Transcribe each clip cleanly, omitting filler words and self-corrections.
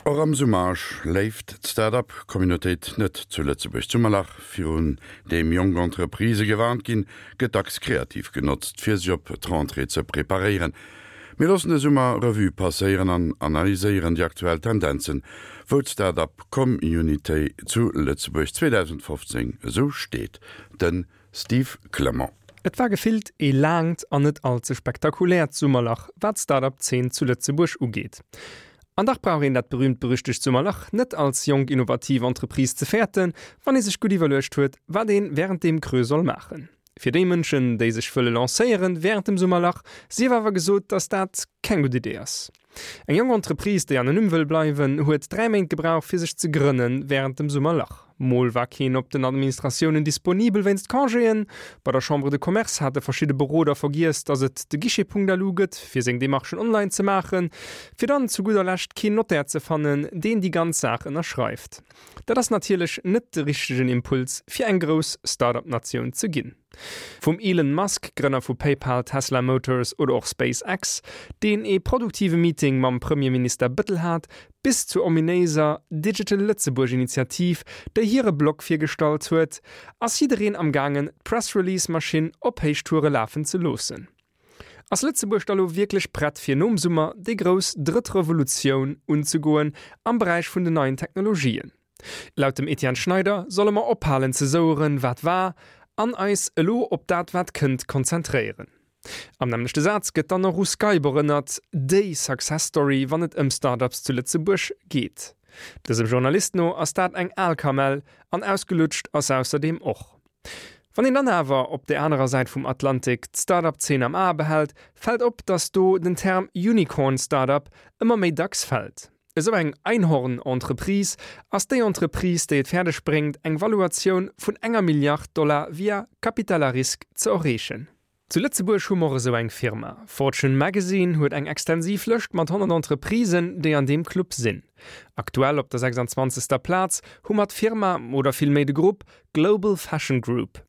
Och am Summer schléift d'Start-up-Communautéit net zu Lëtzebuerg. D'Summerlach, virun deem jonk Entreprisë gewarnt ginn, gëtt dacks kreativ genotzt, fir sech op d'Rentrée ze preparéieren. Mir loossen de Summer Revue passéieren an analyséieren déi aktuell Tendenzen, wou d'Start-up-Communautéit zu Lëtzebuerg 2015 esou steet. De Steve Clement. Et war gefillt ee laangt an net all ze spektakuläert Summerlach, wat d'Start-up-Zeen zu Lëtzebuerg ugeet. An dach brauch een dat berühmt-berüchtegt Summerlach net als jonk innovativ Entreprise ze fäerten, wann ee sech gutt iwwerluecht huet, wat een wärend deem Creux soll maachen. Fir déi Mënschen, déi sech wëlle lancéieren wärend dem Summerlach, sief awer gesot, dass dat keng gutt Idee ass. Eng jonk Entreprise, déi anonym wëll bleiwen, huet 3 Méint gebraucht, fir sech ze grënnen wärend dem Summerlach. Mol war keen op den Administratiounen disponibel wéinst Congéen. Bei der Chambre de Commerce hate verschidde Beroder vergiess, datt et de Guichet.lu gëtt, fir seng Demarchen online ze maachen, fir dann zu gudder Lescht keen Notaire ze fannen, deen déi ganz Saach ënnerschreift. Dat ass natierlech net de richtegen Impuls, fir eng grouss Start-up-Natioun ze ginn. Vum Elon Musk, Grënner vu PayPal, Tesla Motors oder och SpaceX, deen ee produktive Meeting mam Premierminister Bëttel hat, bis zur ominéiser Digital Lëtzebuerg Initiativ, déi hire Blog virgestallt huet, ass jiddereen am gaangen d'Press-Release-Maschinn op Héichtoure lafen ze loossen. Ass Lëtzebuerg da lo wierklech prett fir nom Summer déi grouss drëtt Revolutioun unzegoen am Beräich vun den neien Technologien? Laut dem Etienne Schneider solle mer ophalen ze soueren, wat war, an eis elo op dat wat kënnt konzentréieren. Am nämmlechte Saz gëtt dann och u Skype erënnert, déi Success Story wann et ëm Start-ups zu Lëtzebuerg geet. Dësem Journalist no ass dat eng al Kamell an ausgelutscht ass se ausserdeem och. Wann een dann awer op där anerer Säit vum Atlantik d'Start-up-Zeen am Ae behält, fält op, datt do den Term Unicorn Start-up ëmmer méi dacks fält. Esou eng Einhorn-Entreprise ass déi Entreprise, déi et fäerdeg bréngt, eng Valuatioun vun enger Milliard Dollar via Capital à risque ze erreechen. Zu Lëtzebuerg hu mer och esou eng Firma. Fortune Magazine huet eng extensiv Lëscht mat 100 Entreprisen, déi an deem Club sinn. Aktuell op der 26. Plaz hu mer d'Firma, oder villméi de Grupp, Global Fashion Group.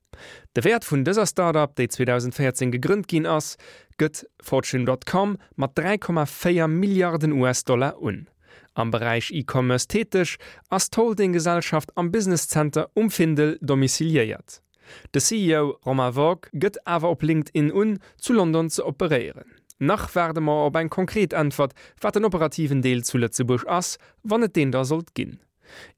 De Wäert vun dëser Start-up, déi 2014 gegrënnt ginn ass, gëtt Fortune dot com mat 3,4 Milliarden US-Dollar un. Am Beräich E-Commerce täteg, ass d'Holdinggesellschaft am Business Center um Findel domiciliéiert. De CEO Romain Vogt gëtt awer op LinkedIn un, zu London ze operéieren. Nach waarde mer op eng konkret Äntwert, wat den operativen Deel zu Lëtzebuerg ass, wann et deen da sollt ginn.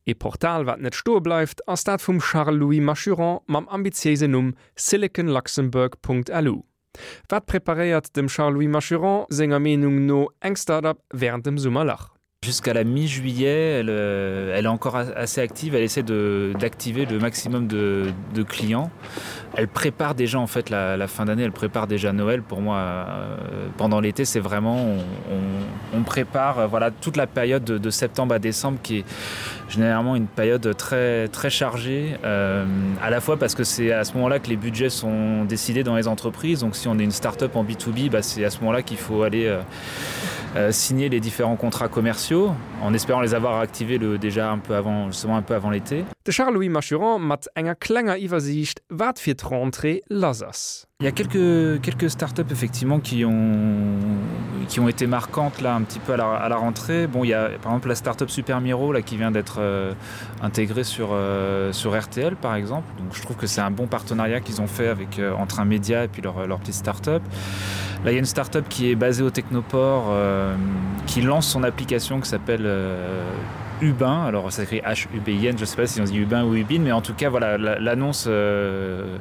Ee Portal wat net stoe bleift, ass dat vum Charles-Louis Machuron mam ambitiéisen Numm siliconluxembourg.lu. Wat preparéiert dem Charles-Louis Machuron senger Meenung no eng Start-up wärend dem Summerlach? Jusqu'à la mi-juillet, elle, euh, elle est encore assez active, elle essaie d'activer le maximum de, de clients. Elle prépare déjà en fait la, la fin d'année, elle prépare déjà Noël pour moi euh, pendant l'été, c'est vraiment on, on, on prépare euh, voilà toute la période de, de septembre à décembre qui est généralement une période très très chargée euh, à la fois parce que c'est à ce moment là que les budgets sont décidés dans les entreprises donc si on est une start-up en B2B bah, c'est à ce moment là qu'il faut aller euh, euh, signer les différents contrats commerciaux en espérant les avoir activés le déjà un peu avant justement un peu avant l'été. De Charles-Louis Machuron mat enger klenger Iwwersiicht wat fir d'Rentrée lass ass. Il y a quelques, quelques startups effectivement qui ont, qui ont été marquantes là un petit peu à la, à la rentrée. Bon il y a par exemple la startup Super Miro là qui vient d'être euh, intégrée sur, euh, sur RTL par exemple. Donc je trouve que c'est un bon partenariat qu'ils ont fait avec euh, entre un média et puis leur, leur petite startup. Là il y a une startup qui est basée au Technoport euh, qui lance son application qui s'appelle euh, Ubin alors ça écrit H U B I N je sais pas si on dit Ubin ou Ubin mais en tout cas voilà l'annonce euh,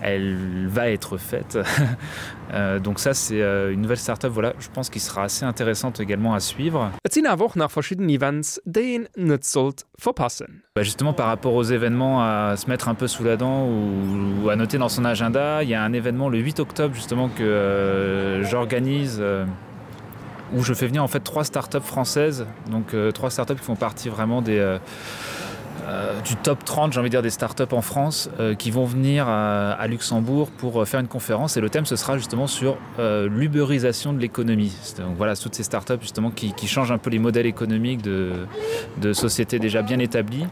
elle va être faite euh, donc ça c'est euh, une nouvelle startup voilà je pense qu'il sera assez intéressante également à suivre Et sinn awer och nach verschidden Events, déi een net sollt verpassen. Bah justement par rapport aux événements à se mettre un peu sous la dent ou, ou à noter dans son agenda il y a un événement le 8 octobre justement que euh, j'organise euh, où je fais venir en fait trois startups françaises donc euh, trois startups qui font partie vraiment des euh, euh, du top 30 j'ai envie de dire des startups en France euh, qui vont venir à, à Luxembourg pour euh, faire une conférence et le thème ce sera justement sur euh, l'uberisation de l'économie. Donc voilà toutes ces startups justement qui, qui changent un peu les modèles économiques de, de sociétés déjà bien établies.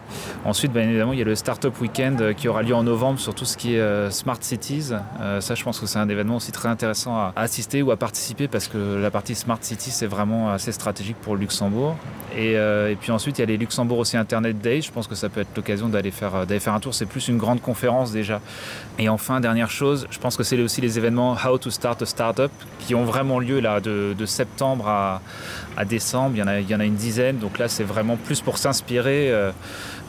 Ensuite bien évidemment il y a le startup week-end euh, qui aura lieu en novembre sur tout ce qui est euh, smart cities. Euh, ça je pense que c'est un événement aussi très intéressant à, à assister ou à participer parce que la partie smart city c'est vraiment assez stratégique pour le Luxembourg. Et, euh, et puis ensuite il y a les Luxembourg aussi Internet Day. Je pense que ça peut être l'occasion d'aller faire, euh, d'aller faire un tour. C'est plus une grande conférence déjà. Et enfin dernière chose, je pense que c'est aussi les événements How to start a startup qui ont vraiment lieu là de, de septembre à, à décembre. Il y, en a, il y en a une dizaine. Donc là c'est vraiment plus pour s'inspirer euh,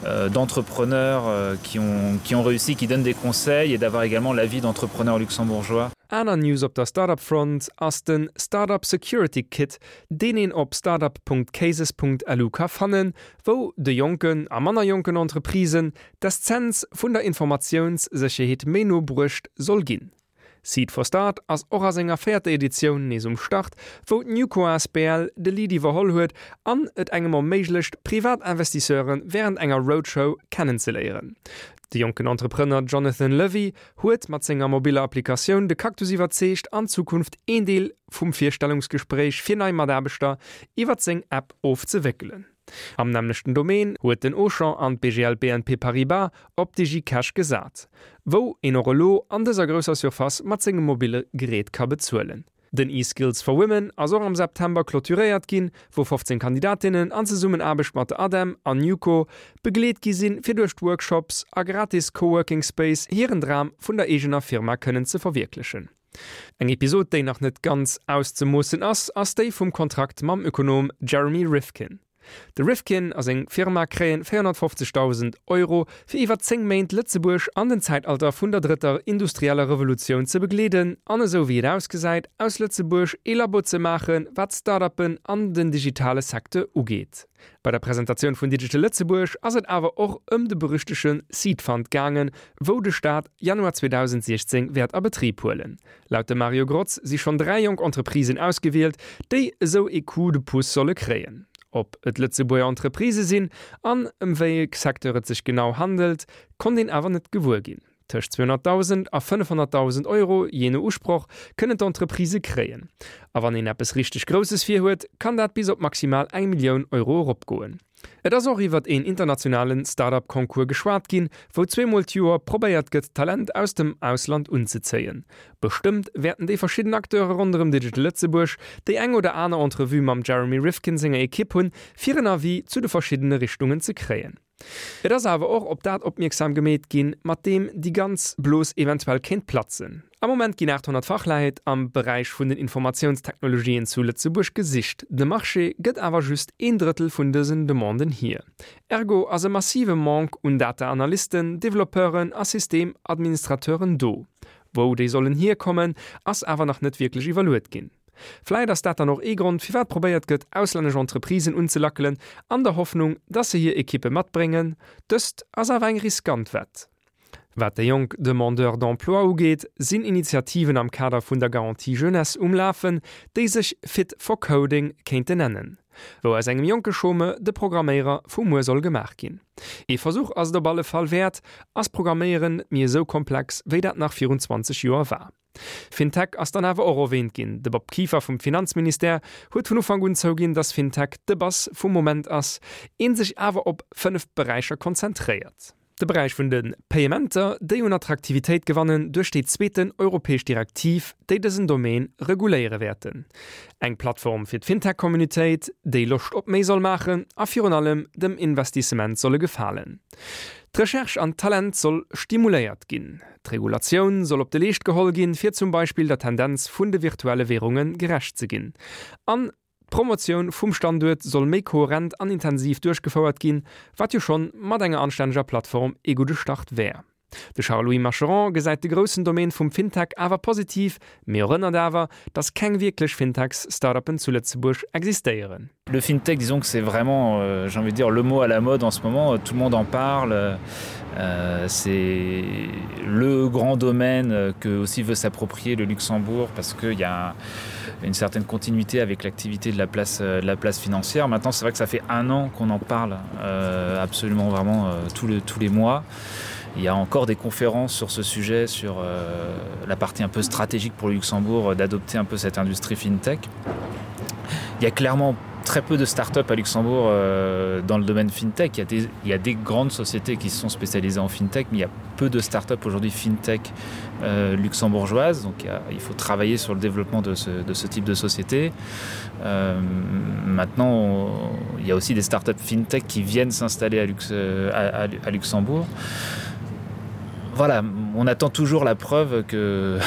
euh, d'entrepreneurs euh, qui, ont, qui ont réussi, qui donnent des conseils et d'avoir également l'avis d'entrepreneurs luxembourgeois. Aner News op der Startup-Front ass den Startup Security Kit, deen een op startup.cases.lu ka fannen, wou de jonken a manner jonken Entreprisen d'Essenz vun der Informatiounssécherheet méi no bruecht soll ginn. Seed for Start ass och a senger véierter Editioun nees um Start, wou d'Newco asbl de Lead iwwerholl huet an et engem erméiglecht, privat Investisseure wärend enger Roadshow kennenzeléieren. De jonken Entrepreneur Jonathan Levy huet mat senger mobiller Applikatioun de Cactus iwwerzeegt, an Zukunft een Deel vum Virstellungsgespréich fir nei Mataarbechter iwwert seng App ofzewéckelen. Am nämmlechten Domaine huet den Auchan an d'BGL BNP Paribas op DigiCash gesat, wou een och elo an dëser grousser Surface mat sengem mobille Gerät ka bezuelen. Den eSkills for Women ass och am September clôturéiert ginn, wou 15 Kandidatinnen an Zesummenaarbecht mat der ADEM an Newco begleet gi sinn, fir duerch d'Workshops a gratis Coworking Space hiren Dram vun der eegener Firma kënnen ze verwierklechen. Eng Episod, déi nach net ganz auszemoossen ass, ass déi vum Kontrakt mam Ökonom Jeremy Rifkin. De Rifkin a seng Firma kréien 450.000 Euro fir iwwer 10 Méint Lëtzebuerg an den Zäitalter vun der drëtter industrieller Revolutioun ze begleeden an esou wéi et ausgesäit aus Lëtzebuerg ee Labo ze maachen wat Start-uppen an den digitale Secteur ugeet. Bei der Presentatioun vun Digital Lëtzebuerg ass et awer och ëm de berüchtege Seed Fund gaangen, wou de Staat Januar 2016 wäert a Betrib huelen. Laut dem Mario Grotz si schonn 3 jonk Entreprisen ausgewielt, déi esou ee Coup de pouce solle kréien. Ob et Lëtzebuerger Entreprisë sinn an ëm wéi e Secteur et sech genau handelt, konnt een awer net gewuer ginn. Tëscht 200.000 a 500.000 Euro, jee no Usproch, kënnen d'Entreprisë kréien. A wann een eppes richteg Grousses virhuet, kann dat bis op maximal eng Millioun Euro eropgoen. Et ass och iwwert een internationale Start-up-Concours geschwat ginn, wou zweemol d'Joer probéiert gëtt, Talent aus dem Ausland unzezéien. Bestëmmt wäerten déi verschidden Acteure ronderëm Digital Lëtzebuerg déi eng oder aner Entrevue mam Jeremy Rifkin senger Ekipp hunn, fir en Avis zu de verschiddene Richtungen ze kréien. Et ass awer och op dat opmierksam gemeet ginn, mat deem déi ganz Blos eventuell kéint platzen. Am Moment ginn 800 Fachleit am Beräich vun den Informatiounstechnologien zu Lëtzebuerg gesicht. De Marché gëtt awer just een Drëttel vun dësen Demanden hier. Ergo ass e massive Manque un Data-Analysten, Developpeuren a Systemadministrateuren do. Wou déi sollen hierkommen, ass awer nach net wierklech iwwerluet ginn. Vläit ass dat dann och ee Grond, firwat probéiert gëtt, auslännesch Entreprisen unzelackelen, an der Hoffnung, dass se hir Ekippe matbréngen. Dëst ass awer eng riskant Wett. Wat déi jonk Demandeurs d'emploi ugeet, sinn Initiativen am Kader vun der Garantie Jeunesse um Lafen, déi sech Fit for Coding kéinte nennen, wou aus engem jonke Chômeur de Programméierer vu muer soll gemaach ginn. Ee Versuch ass et op alle Fall wäert. Ass Programméieren net méi esou komplex, wéi dat nach virun 20 Joer war? Fintech ass dann awer och erwähnt ginn. De Bob Kieffer vum Finanzministère huet vun Ufank un zouginn, datt Fintech de Bass vum Moment ass, een sech awer op 5 Beräicher konzentréiert. De Beräich vun de Payementer, déi un Attraktivitéit gewannen duerch déi zweeten europäesch Direktiv, déi dësen Domaine reguléiere wäerten. Eng Plattform fir d'Fintech-Communautéit, déi Loscht op méi soll maachen a virun allem dem Investissement solle gefalen. D'Recherche an d'Talent soll stimuléiert ginn. D'Regulatioun soll op de Leescht geholl ginn, fir zum Beispill der Tendenz vun de virtuelle Währunge gerecht ze ginn. An d'Promotioun vum Standuert soll méi kohärent an intensiv duerchgefouert ginn, wat jo schonn mat enger anstänneger Plattform ee gudde Start wär. De Charles-Louis Macheron gesäit de groussen Domaine vum Fintech awer positiv, mee erënnert awer, datt keng wierklech Fintechs-Startuppen zu Lëtzebuerg existéieren. Le Fintech, disons que c'est vraiment, euh, j'ai envie de dire, le mot à la mode en ce moment, tout le monde en parle. Euh, c'est le grand domaine que aussi veut s'approprier le Luxembourg parce qu'il y a une certaine continuité avec l'activité de la place euh, de la place financière. Maintenant c'est vrai que ça fait un an qu'on en parle euh, absolument vraiment euh, tous, le, tous les mois. Il y a encore des conférences sur ce sujet sur euh, la partie un peu stratégique pour le Luxembourg euh, d'adopter un peu cette industrie fintech. Il y a clairement très peu de start-up à Luxembourg euh, dans le domaine fintech. Il y, a des, il y a des grandes sociétés qui se sont spécialisées en fintech, mais il y a peu de start-up aujourd'hui fintech euh, luxembourgeoise. Donc il, y a, il faut travailler sur le développement de ce, de ce type de société. Euh, maintenant, on, il y a aussi des start-up fintech qui viennent s'installer à, Lux, euh, à, à, à Luxembourg. Voilà, on attend toujours la preuve que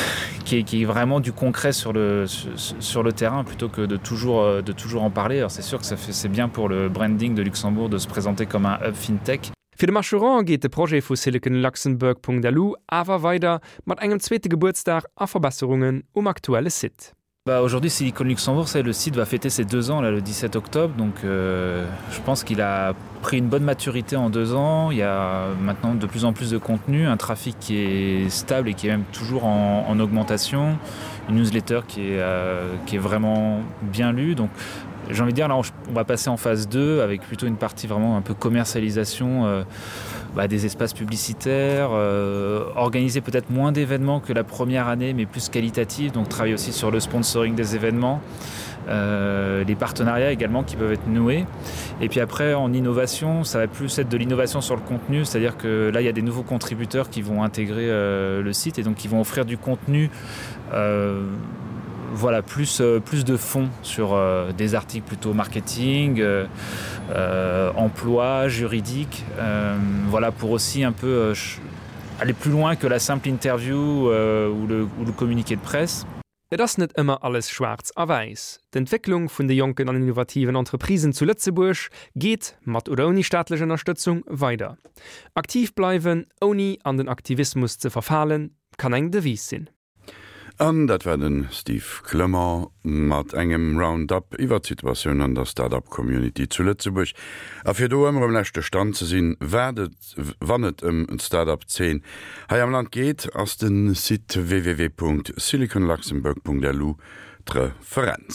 qui est, qui est vraiment du concret sur le, sur le terrain plutôt que de toujours, euh, de toujours en parler. Alors c'est sûr que ça fait c'est bien pour le branding de Luxembourg de se présenter comme un hub fintech. Fir de Macheron geet de Projet vu siliconluxembourg.lu awer weider mat engem zweete Gebuertsdag a Verbesserungen um aktuelle Site. Bah aujourd'hui Silicon Luxembourg c'est le site va fêter ses deux ans là le 17 octobre donc euh, je pense qu'il a pris une bonne maturité en deux ans il y a maintenant de plus en plus de contenu un trafic qui est stable et qui est même toujours en, en augmentation une newsletter qui est, euh, qui est vraiment bien lue donc j'ai envie de dire là on va passer en phase 2 avec plutôt une partie vraiment un peu commercialisation euh, bah, des espaces publicitaires euh, organiser peut-être moins d'événements que la première année mais plus qualitatif donc travailler aussi sur le sponsoring des événements euh, les partenariats également qui peuvent être noués et puis après en innovation ça va plus être de l'innovation sur le contenu c'est à dire que là il y a des nouveaux contributeurs qui vont intégrer euh, le site et donc qui vont offrir du contenu euh, voilà plus euh, plus de fonds sur euh, des articles plutôt marketing euh, euh, emploi juridique euh, voilà pour aussi un peu euh, aller plus loin que la simple interview euh, ou le, ou le communiqué de presse. Et ass net ëmmer alles schwaarz a wäiss. D'Entwécklung vun de jonken an innovativen Entreprisen zu Lëtzebuerg geet, mat oder ouni staatlech Ënnerstëtzung, weider. Aktiv bleiwen, ouni an den Aktivismus ze verfalen, kann eng Devise sinn. An dat war de Steve Clement mat engem Roundup iwwer d'Situatioun an der Start-up Community zu Lëtzebuerg. A fir do ëmmer um leschte Stand ze sinn, wat et, wann et ëm d'Start-up Zeen hei am Land geet, ass de Site www.siliconluxembourg.lu d'Referenz.